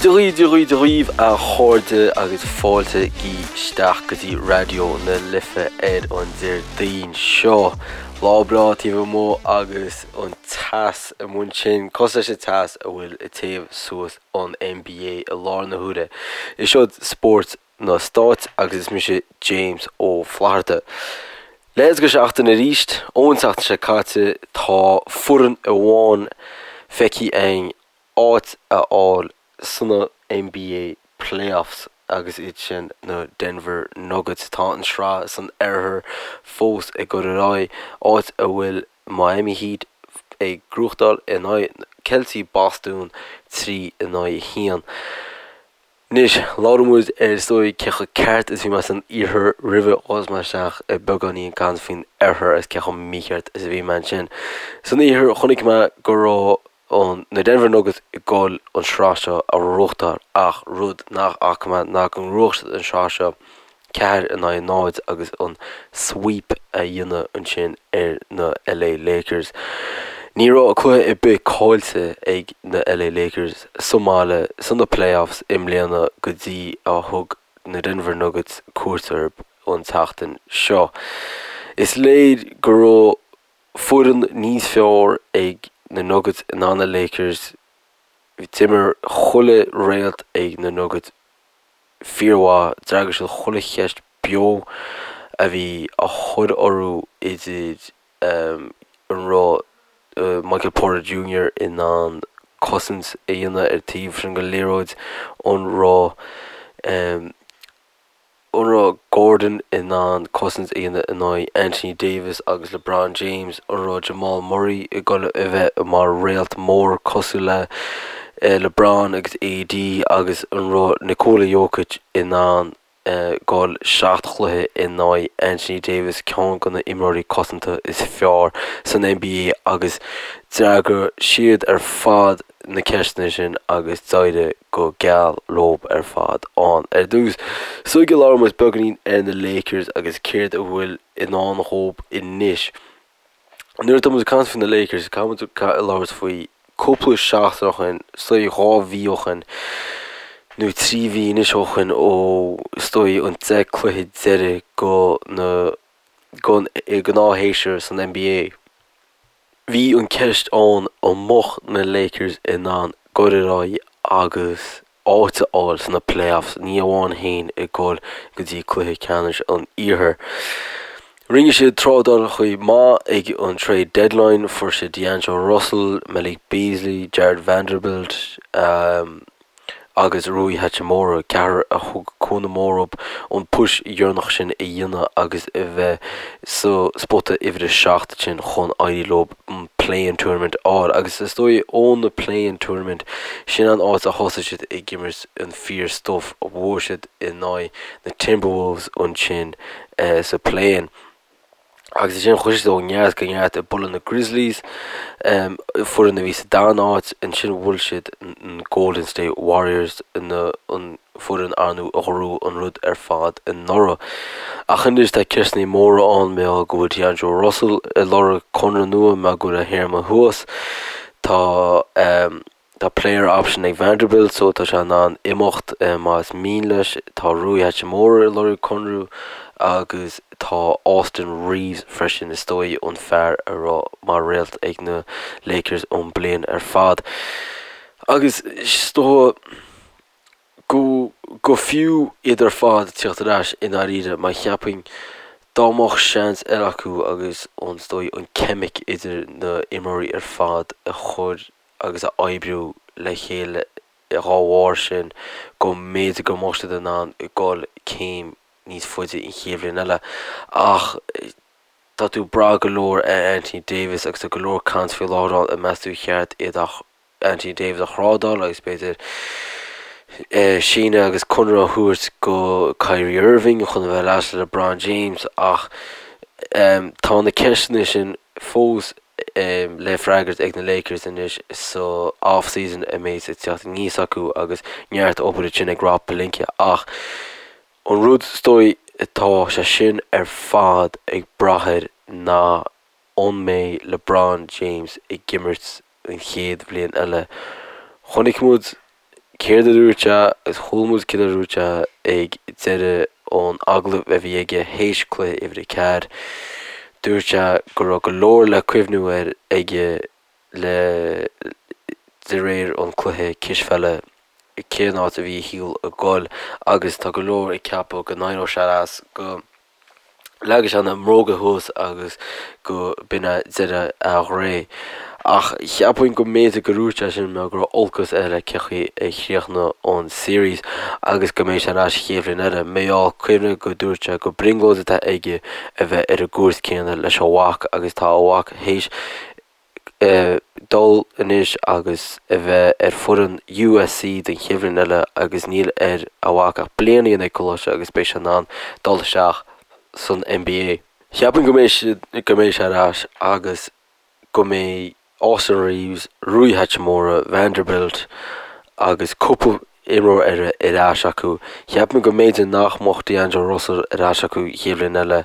Dia dhaoibh, Dia dhaoibh, Dia dhaoibh a chairde agus fáilte isteach go dtí Raidió na Life ar an Déardaoin seo. Lá breá taobh amuigh agus an teas amuigh ansin, cosúil leis an teas a bhfuil ag téamh suas an NBA i láthair na huaire. Is seod spórt na Stáit agus is mise James Ó Flatharta. Leathuair go seachtain arís, ón tseachtain seo caite, tá foireann amháin feicthe againn áit a fháil sna NBA Playoffs agus iad sin na Denver Nuggets. Tá an sraith san oirthear fós ag dul ar aghaidh, áit a bhfuil Miami Heat ag gnóthachtáil in aghaidh Ceiltigh Bostún 3 in aghaidh 1. Anois, labhróidh muid ar is dóigh cé chomh ceart is bhí mé san iarthar roimhe ghabhfaidh mé isteach i beagáinín caint faoin oirthear agus cé chomh mícheart is a bhí mé ansin. San iarthar chonaic mé go raibh an na Denver Nuggets ag dul an sraith seo a ghnóthachtáil ach rud nach bhfaca mé ná go ngnóthódh siad an sraith seo 4 in aghaidh 0 agus an sweep a dhéanamh ansin ar na LA Lakers. Ní raibh cluiche ar bith caillte ag na LA Lakers sa mbaile sna playoffs i mbliana go dtí a thug na Denver Nuggets cuairt orthu an tseachtain seo. Is léir go raibh foireann níos fearr ag na Nuggets ná na Lakers. D'imir chuile réalt ag na Nuggets fíormhaith. D'fhreagair siad chuile cheist beo a bhí á chur orthu idir an raibh Michael Porter Junior in ann cosaint a dhéanamh ar taobh sin den liathróid, an raibh an raibh Gordon in ann cosaint a dhéanamh in aghaidh Anthony Davis agus LeBron James, an raibh Jamal Murray ag dul a bheith mar réalt mór cosúil le LeBron agus AD agus an raibh Nikola Jokic in ann dul 7 chluiche in aghaidh Anthony Davis, ceann de na imreoirí cosanta is fearr san NBA agus d'fhreagair siad ar fad na ceisteanna sin agus d'éirigh go geal leob ar fad ann. Ar dtús, sula labhróidh muid beagáinín ar na Lakers agus céard a bhfuil i ndán dhóib anois. Nuair atá muid ag caint faoi na Lakers, caithfidh muid labhairt faoi cúpla seachtain ó shin, is dóigh 2 mhí ó shin, nó 3 mhí anois ó shin ó is dóigh an 10 cluiche deiridh go na gon gnáthshéasúr san NBA. Bhí an ceist ann an mbeadh na Lakers in ann dul ar aghaidh agus áit a fháil sna playoffs, ní amháin féin ag dul go dtí cluiche ceannais an Iarthair. Rinne siad trádálacha maith ag an trade deadline, fuair siad D'Angelo Russell, Malik Beasley, Jarred Vanderbilt, agus Rui Hachimura, ceathrar a thug cúnamh mór dóibh an push dheireanach sin a dhéanamh agus a bheith sa spota uimhir a 7 sin chun éirí leo an play-in tournament a fháil. Agus is dóigh ó na play-in tournament, sin an áit a thosaigh siad ag imirt an fíor stuff, bhuaigh siad in aghaidh na Timberwolves ansin sa play-in. Agus ansin chuaigh siad ó neart go neart ag bualadh na Grizzlies, foireann a bhí sa darna háit. Ansin bhuail siad an Golden State Warriors, an foireann ar ndóigh a ghnóthaigh an rud ar fad anuraidh. Ach anois tá ceisteanna móra ann mar gheall go bhfuil D'Angelo Russell ag lorg conradh nua mar go bhfuil a théarma thuas. Tá. Tá player option ag Vanderbilt so tá sé in ann imeacht más mian leis. Tá Rui Hachimura ag lorg conradh agus tá Austin Reaves freisin, is dóigh an fear a raibh mar réalt ag na Lakers an bliain ar fad. Agus is dóigh go go fiú iad ar fad tíocht ar ais i ndáiríre mar cheapfainn dá mbeadh seans eile acu agus an is dóigh an ceimic idir na imreoirí ar fad a chur agus a oibriú le chéile dá bharr sin go mb'fhéidir go mbeadh siad in ann dul céim níos faide an chéad bhliain eile. Ach tá tú ag brath go leor ar Anthony Davis agus tá go leor caint faoi láthair ann an meas tú ar cheart iad a Anthony Davis a thrádáil agus b'fhéidir síneadh agus conradh a thabhairt go Kyrie Irving chun a bheith leis le LeBron James ach tá na ceisteanna sin fós le freagairt ag na Lakers anois sa off-season a mbeidh ag teacht aníos acu agus neart obair ansin ag Rob Pelinka ach an rud is dóigh atá sé sin ar fad ag brath air ná an mbeidh LeBron James ag imirt an chéad bhliain eile. Chonaic muid. Céard a dúirt sé agus chuala muid céard a dúirt sé ag deireadh an agallaimh a bhí aige théis cluiche uimhir 4. Dúirt sé go raibh go leor le cuimhniú air aige le de réir an cluiche cispheile cén áit a bhí a shaol ag goil agus tá go leor ag ceapadh go n-éireodh sé as go Leagfaidh sé na mbróga thuas agus go b'in é deireadh a ré. Ach cheapfainn go mb'fhéidir go ndúirt sé sin mar go raibh olcas air le cé chaoi a chríochnaigh an series agus go mbeidh sé ar ais an chéad bhliain eile. Mar gheall, cuimhnigh go dúirt sé go brionglóid atá aige a bheith ar an gcúirt céanna leis a mhac agus tá a mhac théis dul anois agus a bheith ar foireann USC don chéad bhliain eile agus níl ar a mhac ach bliain a dhéanamh ag coláiste agus beidh sé in ann dul isteach san NBA. Cheapfainn go mbeidh siad, go mbeidh sé ar ais agus go mbeidh Austin Reaves, Rui Hachimura, Vanderbilt agus cúpla imreoir eile ar ais acu. Cheapfainn go mb'fhéidir nach mbeadh D'Angelo Russell ar ais acu an chéad bhliain eile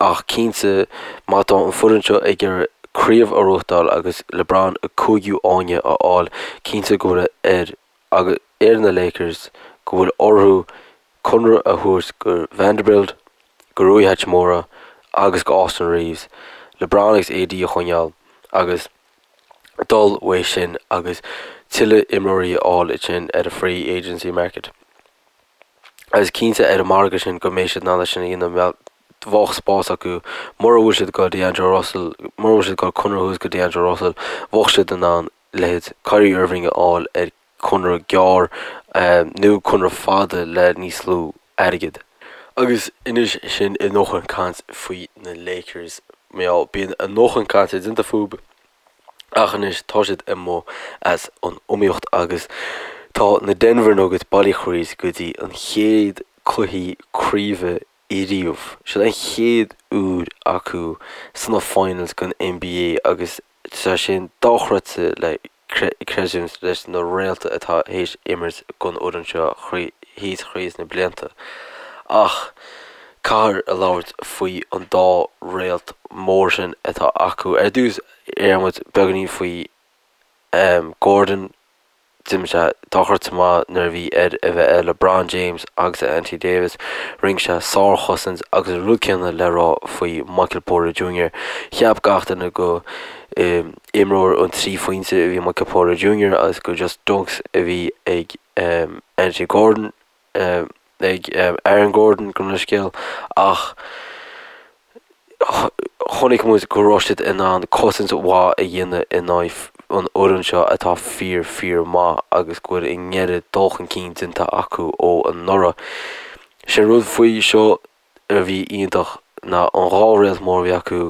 ach cinnte má tá an foireann seo ag iarraidh craobh a ghnóthachtáil agus LeBron a cúigiú fháinne a fháil, cinnte go bhfuil ar ar na Lakers go bhfuil orthu conradh a thabhairt go Vanderbilt, go Rui Hachimura agus go Austin Reaves, LeBron agus AD a choinneáil agus dul uaidh sin agus tuilleadh imreoirí a fháil ansin ar an free agency market. Agus cinnte ar an margadh sin go mbeidh siad in ann é sin a dhéanamh bheadh spás acu mura bhfuil siad ag dul D'Angelo Russell, mura bhfuil siad ag dul conradh a thabhairt go D'Angelo Russell, bheadh siad in ann leithéid Kyrie Irving a fháil ar conradh gearr nó conradh fada le níos lú airgid. Agus anois sin a ndóthain caint faoi na Lakers. Mar gheall, bíonn a ndóthain cainte déanta fúthu ach anois tá siad amuigh as an iomaíocht agus tá na Denver Nuggets bailithe thríd go dtí an chéad cluichí craoibhe ariamh. Sin an chéad uair acu sna finals den NBA agus tá sin dochreidte le creidiúint leis na réalta atá théis imirt don fhoireann seo thíos thríd na blianta. Ach caithfear a labhairt faoi an dá réalt mór sin atá acu. Ar dtús déarfaidh muid beagáinín faoi Gordon. D'imir sé dochreidte maith nuair a bhí air a bheith ar LeBron James agus ar Anthony Davis. Rinne sé sárchosaint agus an rud céanna le rá faoi Michael Porter Jr. Cheap gach duine go imreoir an 3 phointe a bhí Michael Porter Jr. agus gur just dunks a bhí ag Anthony Gordon. ag Aaron Gordon gabh mo leithscéal ach chonaic muid go raibh siad in ann cosaint mhaith a dhéanamh in aghaidh an fhoireann seo atá fíor fíor maith agus go bhfuil a ngéire dul chun cinn déanta acu ó anuraidh. Sé an rud faoi seo a bhí iontach ná an dhá réalt mór a bhí acu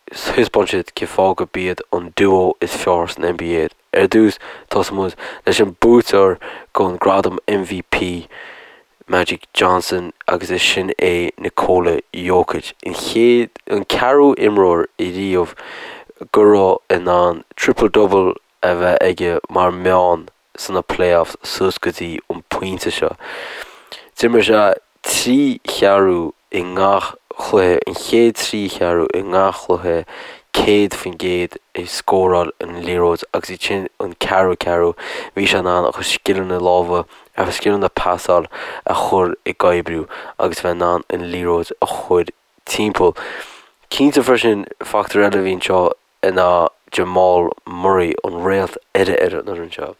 Thaispeáin siad cén fáth go b'iad an duo is fearr san NBA. Ar dtús, tosóidh muid leis an buaiteoir don gradam MVP, Magic Johnson, agus is sin é Nikola Jokic, an chéad, an ceathrú imreoir ariamh go raibh in ann triple double a bheith aige mar meán sna playoffs suas go dtí an pointe seo. D'imir sé 3 cheathrú i ngach cluiche, an chéad 3 cheathrú i ngach cluiche, 100% ag scóráil an liathróid agus iad sin an ceathrú ceathrú bhí sé in ann a chuid scileanna lámha, a chuid scileanna pasáil a chur ag oibriú agus bheith in ann an liathróid a chur timpeall. Cinnte freisin, factor eile a bhí anseo ná Jamal Murray, an réalt eile ar an fhoireann seo.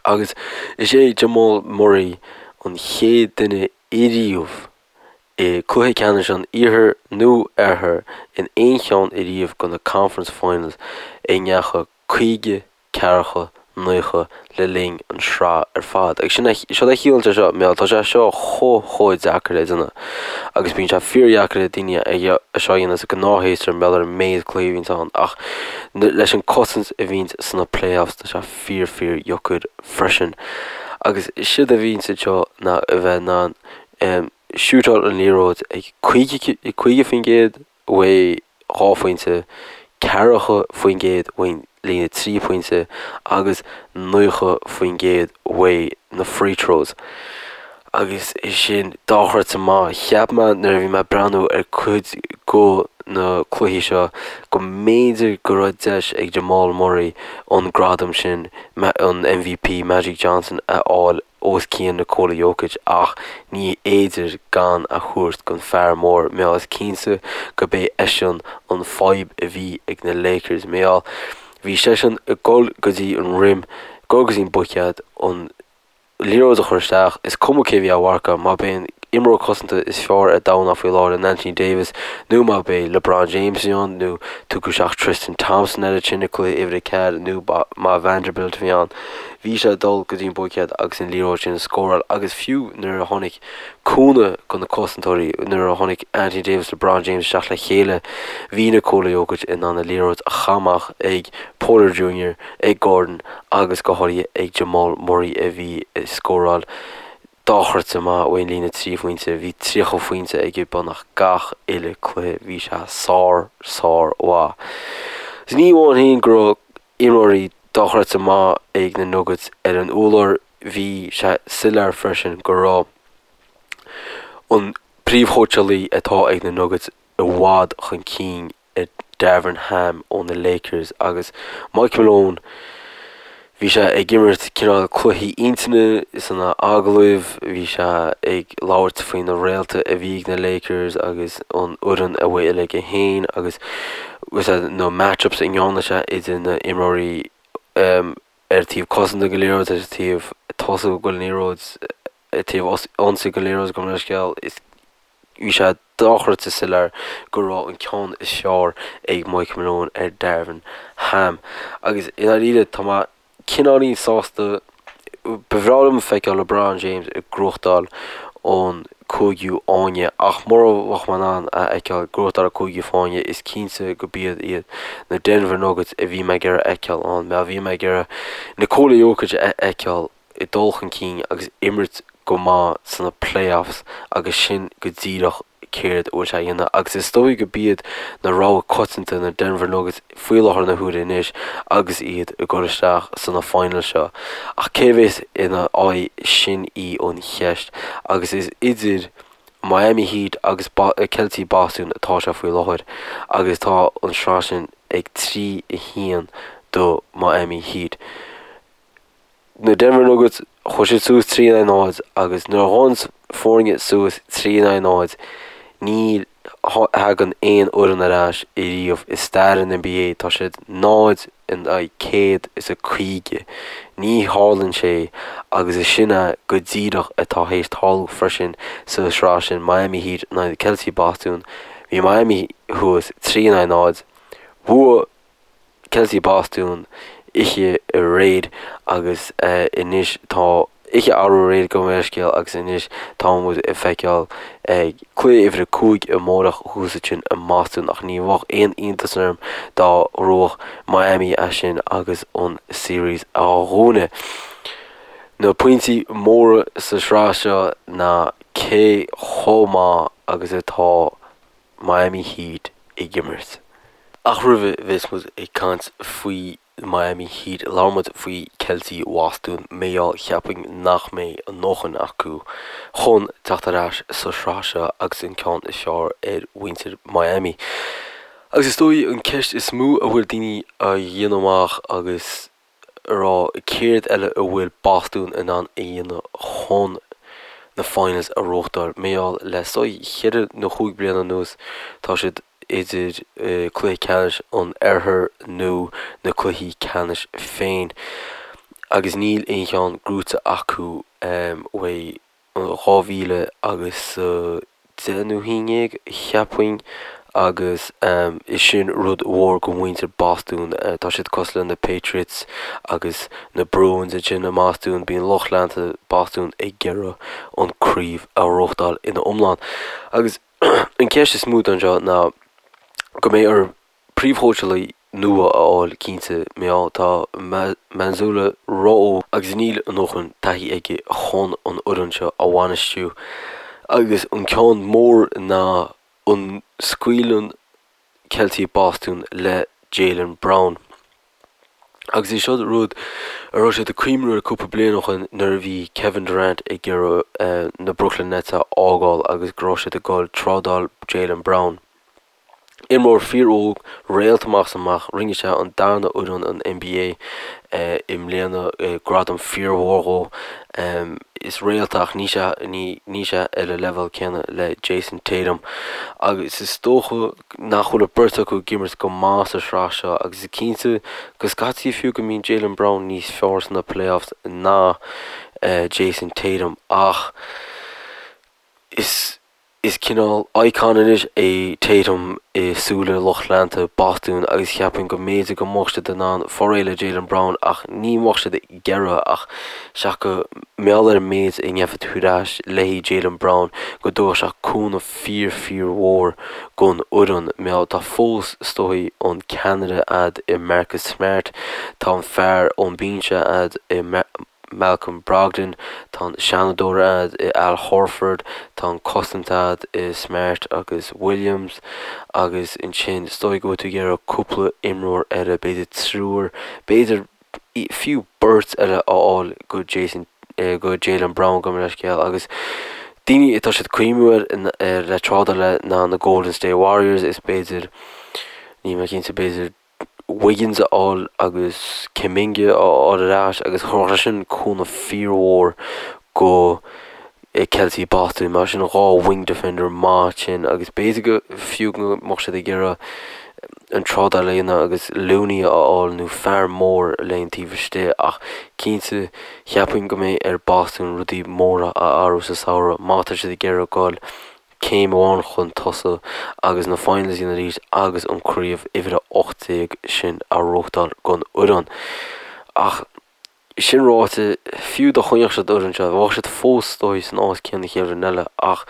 Agus is é Jamal Murray an chéad duine ariamh i gcluiche ceannais an Iarthair nó Oirthir in aon cheann ariamh de na Conference Finals a ndeachaigh 50 ceathracha, 90 le linn an sraith ar fad. Agus sin é, seo a chiallaíonn sé seo, mar tá sé seo chomh chomh deacair le déanamh. Agus bíonn sé fíordheacair le daoine é seo a dhéanamh sa gnáthshéasúr mar gheall ar an méid cluichí a bhíonns ann ach leis an cosaint a bhíonns sna playoffs tá sé fíor fíor dheacair freisin. Agus séard a bhíonns anseo ná a bheith in ann shootáil an liathróid ag 50%, uaidh 2 phointe, 40% uaidh líne 3 pointe agus 90% uaidh na free throws. Agus é sin dochreidte maith. Cheap mé nuair a bhí mé ag breathnú ar cuid go. na cluichí seo go mb'fhéidir go raibh deis ag Jamal Murray an gradam sin, an MVP Magic Johnson, a fháil os cionn Nikola Jokic ach ní fhéidir gan a thabhairt don fear mór mar gheall is cinnte go b'é eisean an fadhb a bhí ag na Lakers mar gheall bhí seisean ag dul go dtí an rim, dul go dtí an buicéad, an liathróid a chur isteach, is cuma cé bhí á mharcadh, má b'é an imreoir cosanta is fearr ar domhan faoi láthair in Anthony Davis nó má b'é LeBron James a bhí ann nó tugadh isteach Tristan Thompson air ansin i cluiche uimhir 4 nó má Vanderbilt a bhí ann. Bhí sé ag dul go dtí an buicéad agus an liathróid sin a scóráil agus fiú nuair a tháinig cúnamh do na cosantóirí, nuair a tháinig Anthony Davis LeBron James isteach le chéile, bhí Nikola Jokic in ann an liathróid a chaitheamh amach ag Porter Junior, ag Gordon agus go háirithe ag Jamal Murray a bhí ag scóráil dochreidte maith ón líne 3 phointe. Bhí 30 phointe aige beagnach gach uile cluiche. Bhí sé sár, sár mhaith. Is ní amháin féin go raibh imreoirí dochreidte maith ag na Nuggets ar an urlár, bhí sé soiléir freisin go raibh an príomhchóitseálaí atá ag na Nuggets i bhfad chun cinn ar Darvin Ham ó na Lakers agus Mike Malone, bhí sé ag imirt cineál cluichí intinne sna agallaimh, bhí sé ag labhairt faoi na réalta a bhí ag na Lakers agus an fhoireann a bhfuil aige féin agus na match-ups a ndearna sé idir na imreoirí ar taobh cosanta den liathróid ar taobh tosaigh den liathróid ar taobh ionsaí den liathróid gabh mo leithscéal is Bhí sé dochreidte soiléir go raibh an ceann is fearr ag Mike Malone ar Darvin Ham. Agus i ndáiríre, tá mé cineáilín sásta, ba bhreá liom feiceáil LeBron James ag gnóthachtáil an cúigiú fáinne ach mura mbeadh mé in ann a fheiceáil ag gnóthachtáil an cúigiú fáinne, is cinnte go b'iad iad na Denver Nuggets a bhí mé ag iarraidh a fheiceáil ann. Mar bhí mé ag iarraidh Nikola Jokic a fheiceáil ag dul chun cinn agus imirt go maith sna playoffs agus sin go díreach céard a bhfuil sé a dhéanamh agus is dóigh go b'iad na rogha coitianta na Denver Nuggets faoi láthair na huaire anois agus iad ag dul isteach sna finals seo. Ach cé bhéas ina aghaidh sin í an cheist agus is idir Miami Heat agus Ceiltigh Bostún atá sé faoi láthair agus tá an sraith sin ag 3 1 do Miami Heat. Na Denver Nuggets, chuaigh siad suas 3 in aghaidh 0 agus nuair a ghabhann foirne suas 3 in aghaidh 0, ní thagann aon fhoireann ar ais ariamh i stair an NBA. Tá siad 0 in aghaidh 150. Ní tharlaíonn sé agus is sin é go díreach atá théis tarlú freisin sa sraith sin, Miami Heat in aghaidh Ceiltigh Bostún. Bhí Miami thuas 3 in aghaidh 0. Bhuaigh Ceiltigh Bostún oíche aréir agus anois tá oíche arú aréir gabh mo leithscéal agus anois tá muid ag feiceáil cluiche uimhir a 5 amárach thuas ansin i mBostún ach ní bheadh aon iontas orm dá ngnóthódh Miami é sin agus an series a dhúnadh. Na pointí móra sa sraith seo ná cé chomh maith agus atá Miami Heat ag imirt. Ach roimh a bheas muid ag caint faoi Miami Heat, labhair muid faoi Ceiltigh Bhostún mar gheall cheapfainn nach mbeidh a ndóthain acu chun teacht ar ais sa sraith seo agus an ceann is fearr ar mhuintir Miami. Agus is dóigh an ceist is mó a bhfuil daoine a dhéanamh amach agus a rá céard eile a bhfuil Bostún in ann a dhéanamh chun na finals a ghnóthachtáil. Mar gheall le is dóigh cheithre nó chúig bliana anuas tá siad idir cluiche ceannais an oirthir nó na cluichí ceannais féin agus níl aon cheann gnóite acu uaidh 2000 agus 10 nó 11, cheapfainn, agus is sin rud mhór go mhuintir Bostún. Tá siad cosúil le na Patriots agus na Bruins ansin i mBostún. Bíonn lucht leanta Bostún ag iarraidh an craobh a ghnóthachtáil ina iomlán. Agus an ceist is mó anseo ná go mbeidh orthu príomhchóitseálaí nua a fháil cinnte mar gheall tá Mazzulla ró-óg agus níl a ndóthain taithí aige chun an fhoireann seo a bhainistiú agus an ceann mór ná an scaoileann Ceiltigh Bostún le Jaylen Brown. Agus é seo rud a raibh siad ag cuimhniú air cúpla bliain ó shin nuair a bhí Kevin Durant ag iarraidh na Brooklyn Nets a fhágáil agus go raibh siad ag dul trádáil Jaylen Brown. Imreoir fíor-óg, réalt amach is amach, rinne sé an darna fhoireann an NBA i mbliana, gradam fíormhór dhó. Is réalt é ach níl sé níl sé ar an leibhéal céanna le Jayson Tatum. Agus is dócha nach bhfuil an beirt acu ag imirt go maith sa sraith seo agus is cinnte go scaití fiú go mbíonn Jaylen Brown níos fearr sna playoffs ná Jayson Tatum ach is Is cineál icon anois é Tatum i súile lucht leanta Bostún agus cheapfainn go mb'fhéidir go mbeadh siad in ann fáil réidh le Jaylen Brown ach ní mbeadh siad ag iarraidh ach seach go mbeadh ar an méid a ngeofá tú ar ais le haghaidh Jaylen Brown go dtabharfadh sé cúnamh fíor fíor mhór gon fhoireann mar tá fós is dóigh an ceannaire a'd i Marcus Smart tá an fear ón binse a'd i Malcolm Brogdon, tá an seanadóir a'd i Al Horford, tá an cosaint a'd i Smart agus Williams agus ansin is dóigh go bhfuil tú ag iarraidh cúpla imreoir eile, b'fhéidir triúr, b'fhéidir fiú beirt eile a fháil go Jason, go Jaylen Brown gabh mo leithscéal agus daoine atá siad cuimhniú ar le trádáil le ná na Golden State Warriors is b'fhéidir, níl mé cinnte, b'fhéidir Wiggins a fháil agus Kuminga a fháil ar ais agus thabharfadh sé sin cúnamh fíormhór go Celtics Boston mar sin 2 wing defender maith sin agus b'fhéidir go fiú go mbeadh siad ag iarraidh an trádáil a dhéanamh agus Looney a fháil nó fear mór le an taobh istigh ach cinnte cheapfainn go mbeidh ar Boston rudaí móra a athrú sa samhradh má tá siad ag iarraidh goil céim amháin chun tosaigh agus na finals a dhéanamh arís agus an craobh uimhir a 18 sin a ghnóthachtáil don fhoireann. Ach sin ráite, fiú dá choinneodh siad an fhoireann seo, bheadh siad fós is dóigh san áit céanna chéad bhliain eile ach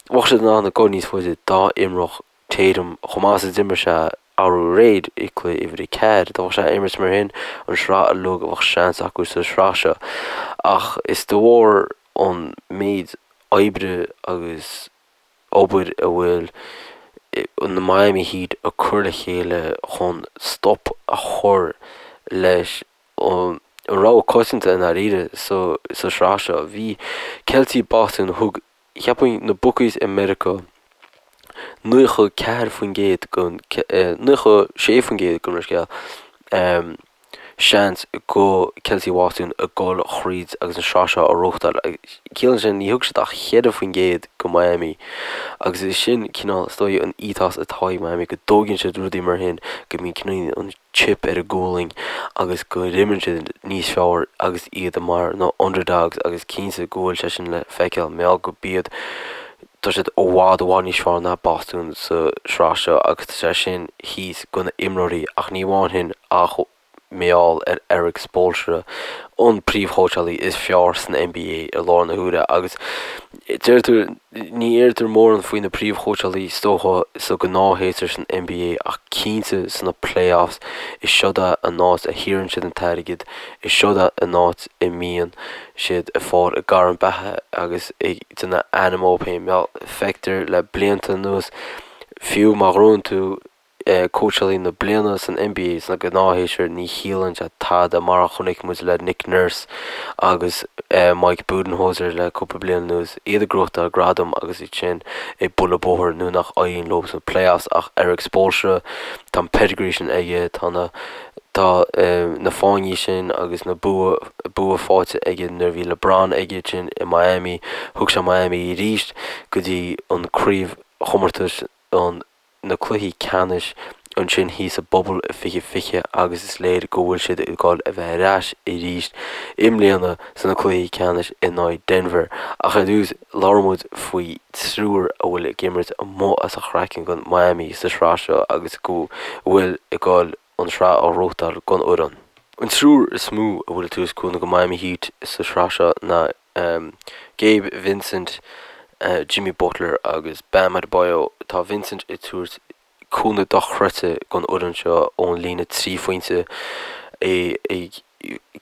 bheadh siad in ann a ghoil níos faide dá imreodh Tatum chomh maith is a d'imir sé arú aréir i cluiche uimhir a 4. Dá mbeadh sé ag imirt mar shin an sraith uilig bheadh seans acu sa sraith seo. Ach is de bharr an méid oibre agus obair a bhfuil na Miami Heat ag cur le chéile chun stop a chur leis an rogha coitianta i ndáiríre sa sraith seo. Bhí Celtics Boston thug cheapfainn na bookies i Meiriceá 94% den 96% gabh mo leithscéal seans go Celtics Bhostún ag dul thríd agus an sraith seo a ghnóthachtáil. Ciallaíonn sin ní thug siad ach 4% go Miami agus is sin cineál is dóigh an ethos atá ag Miami go dtóigeann siad rudaí mar shin go mbíonn cineál an chip ar a gualainn agus go n-imríonn siad níos fearr agus iad mar na underdogs agus cinnte go bhfuil sé sin le feiceáil mar go b'iad tá siad i bhfad i bhfad níos fearr ná Bostún sa sraith seo agus tá sé sin thíos go na imreoirí ach ní amháin shin ach mar gheall ar Erik Spoelstra, an príomhchóitseálaí is fearr san NBA i láthair na huaire agus deirtear, ní deirtear mórán faoi na príomhchóitseálaí is dócha sa ghnáthshéasúr san NBA ach cinnte sna playoffs is seod é an áit a shaothraíonn siad an t-airgead, is seod é an áit a mbíonn siad ag fáil a gcarn beatha agus ag déanamh ainm dóibh féin. Feictear le blianta anuas, fiú má ghnóthaíonn tú cóitseálaí na bliana san NBA sna gnáthshéasúir, ní chiallaíonn sé tada mar a chonaic muid le Nick Nurse agus Mike Budenholzer le cúpla bliain anuas, iad ag gnóthachtáil gradam agus iad sin ag bualadh bóthair nuair nach éiríonn leo sna playoffs ach Erik Spoelstra, tá an pedigree sin aige, tá na Tá na fáinní sin agus na bua bua faighte aige nuair a bhí LeBron aige sin i Miami. Thug sé Miami arís go dtí an craobhchomórtas an na cluichí ceannais ansin thíos sa bubble i 2020 agus is léir go bhfuil siad ag dul a bheith ar ais arís i mbliana sna cluichí ceannais in aghaidh Denver. Ach ar dtús labhróidh muid faoi triúr a bhfuil ag imirt amuigh as a chraiceann don Miami sa sraith seo agus go bhfuil ag dul an sraith a ghnóthachtáil don fhoireann. An triúr is mó a bhfuil ag tabhairt cúnamh go Miami Heat sa sraith seo ná Gabe Vincent, Jimmy Butler agus Bam Adebayo. Tá Vincent ag tabhairt cúnamh dochreidte don fhoireann seo ón líne 3 phointe, é ag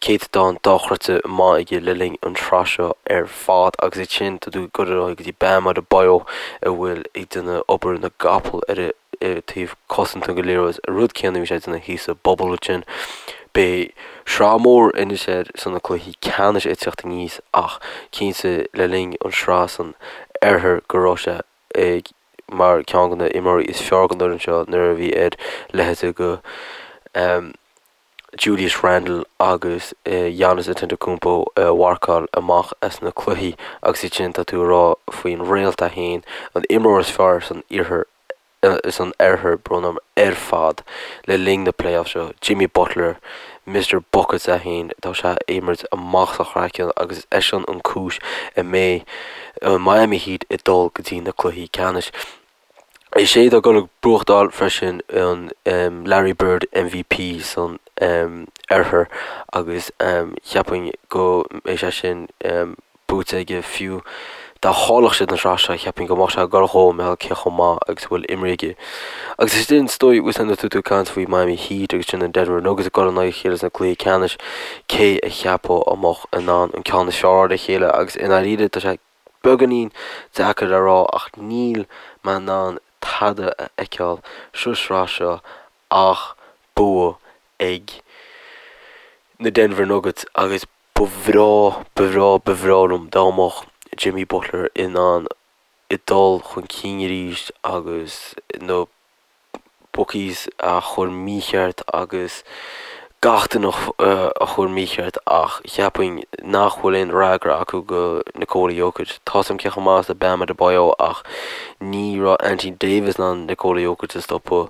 céatadán dochreidte maith aige le linn an tsraith seo ar fad agus ansin tá tú ag dul ar aghaidh go dtí Bam Adebayo a bhfuil ag déanamh obair na gcapall ar taobh cosanta den liathróid, an rud céanna a bhí sé ag déanamh thíos sa bubble ansin. Beidh sraith mhór anois air sna cluichí ceannais ag teacht aníos ach cinnte le linn an sraith san oirthear go raibh sé ag. mar ceann de na imreoirí is fearr den fhoireann seo nuair a bhí ar leithéidí de Julius Randle agus Giannis Antetokounmpo a mharcáil amach as na cluichí agus iad sin tá tú ag rá faoin réalt é féin, an imreoir is fearr san iarthar san oirthear, brón orm, ar fad le linn na playoffs seo, Jimmy Butler, Mister Buckets é féin, tá sé ag imirt amach as a chraiceann agus is eisean an cúis a mbeidh an Miami Heat ag dul go dtí na cluichí ceannais. Is é atá ag dul ag buachtáil freisin an Larry Bird MVP san oirthear agus cheapfainn go mbeidh sé sin buaite aige fiú dá chaillfeadh siad an tsraith seo, cheapfainn go mbeadh sé ag dul dhó mar gheall cé chomh maith agus a bhfuil imrithe aige. Agus is sin is dóigh, bhfuil a fhios agat tú ag caint faoi Miami Heat agus sin an Denver Nuggets ag dul in aghaidh a chéile sna cluichí ceannais, cé a cheapfá a mbeadh in ann an ceann is fearr ar a chéile agus i ndáiríre tá sé beagáinín deacair a rá ach níl mé in ann tada a fheiceáil sa sraith seo ach bua ag na Denver Nuggets agus Ba bhreá, ba bhreá, ba bhreá liom dá mbeadh Jimmy Butler in ann dul chun cinn arís agus na bookies a chur mícheart agus gach duine a chur mícheart ach cheapfainn nach bhfuil aon fhreagra acu go Nikola Jokic. Tá's a'm cé chomh maith is atá Bam Adebayo ach ní raibh Anthony Davis in ann Nikola Jokic a stopadh.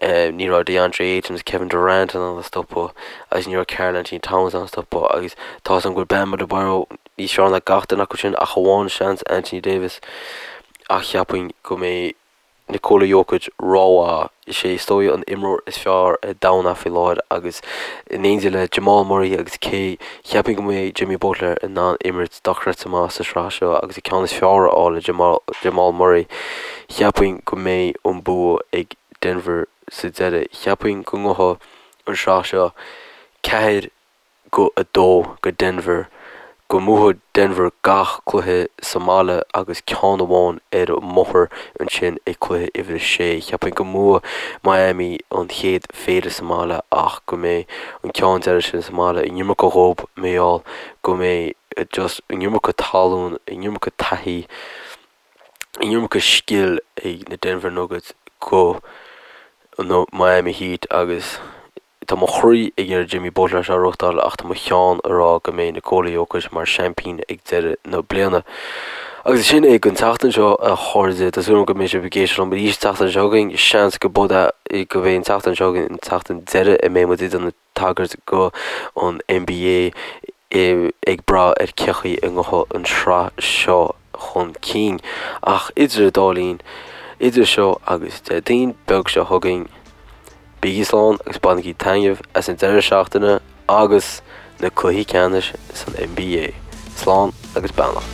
Ní raibh DeAndre Ayton agus Kevin Durant in ann a stopadh agus ní raibh Karl-Anthony Towns in ann a stopadh agus tá's a'm go bhfuil Bam Adebayo níos fearr ná gach duine acu sin ach amháin seans Anthony Davis ach cheapfainn go mbeidh Nikola Jokic rómhaith. Is é is dóigh an imreoir is fearr ar domhan é faoi láthair agus in éindí le Jamal Murray agus cé cheapfainn go mbeidh Jimmy Butler in ann imirt dochreidte maith sa sraith seo agus an ceann is fearr a fháil ar Jamal Murray cheapfainn go mbeidh an bua ag Denver sa deireadh. Cheapfainn go ngabhfaidh an sraith seo 4-2 go Denver, go mbuafaidh Denver gach cluiche sa mbaile agus ceann amháin ar an mbóthar ansin ag cluiche uimhir a sé. Cheapfainn go mbuafaidh Miami an chéad phéire sa mbaile ach go mbeidh an ceann deiridh sin sa mbaile an iomarca dhóibh mar gheall go mbeidh just an iomarca tallann, an iomarca taithí. an iomarca scil ag na Denver Nuggets go na Miami Heat agus tá mo chroí ag iarraidh Jimmy Butler seo a reáchtáil ach tá mo cheann ag rá go mbeidh Nikola Jokic mar seaimpín ag deireadh na bliana. Agus sin é don tseachtain seo a chairde, tá súil agam go mbeidh sibh ag éisteacht liom arís an tseachtain seo chugainn, seans go go mbeidh an tseachtain seo chugainn an tseachtain deiridh a mbeidh muid ag déanamh tagairt go an NBA ag brath ar cé chaoi a ngabhfaidh an sraith seo chun cinn. Ach idir an dá linn, idir seo agus Déardaoin beag seo chugainn, bígí slán agus bainigí taitneamh as an deireadh seachtaine agus na cluichí ceannais san NBA. Slán agus beannacht.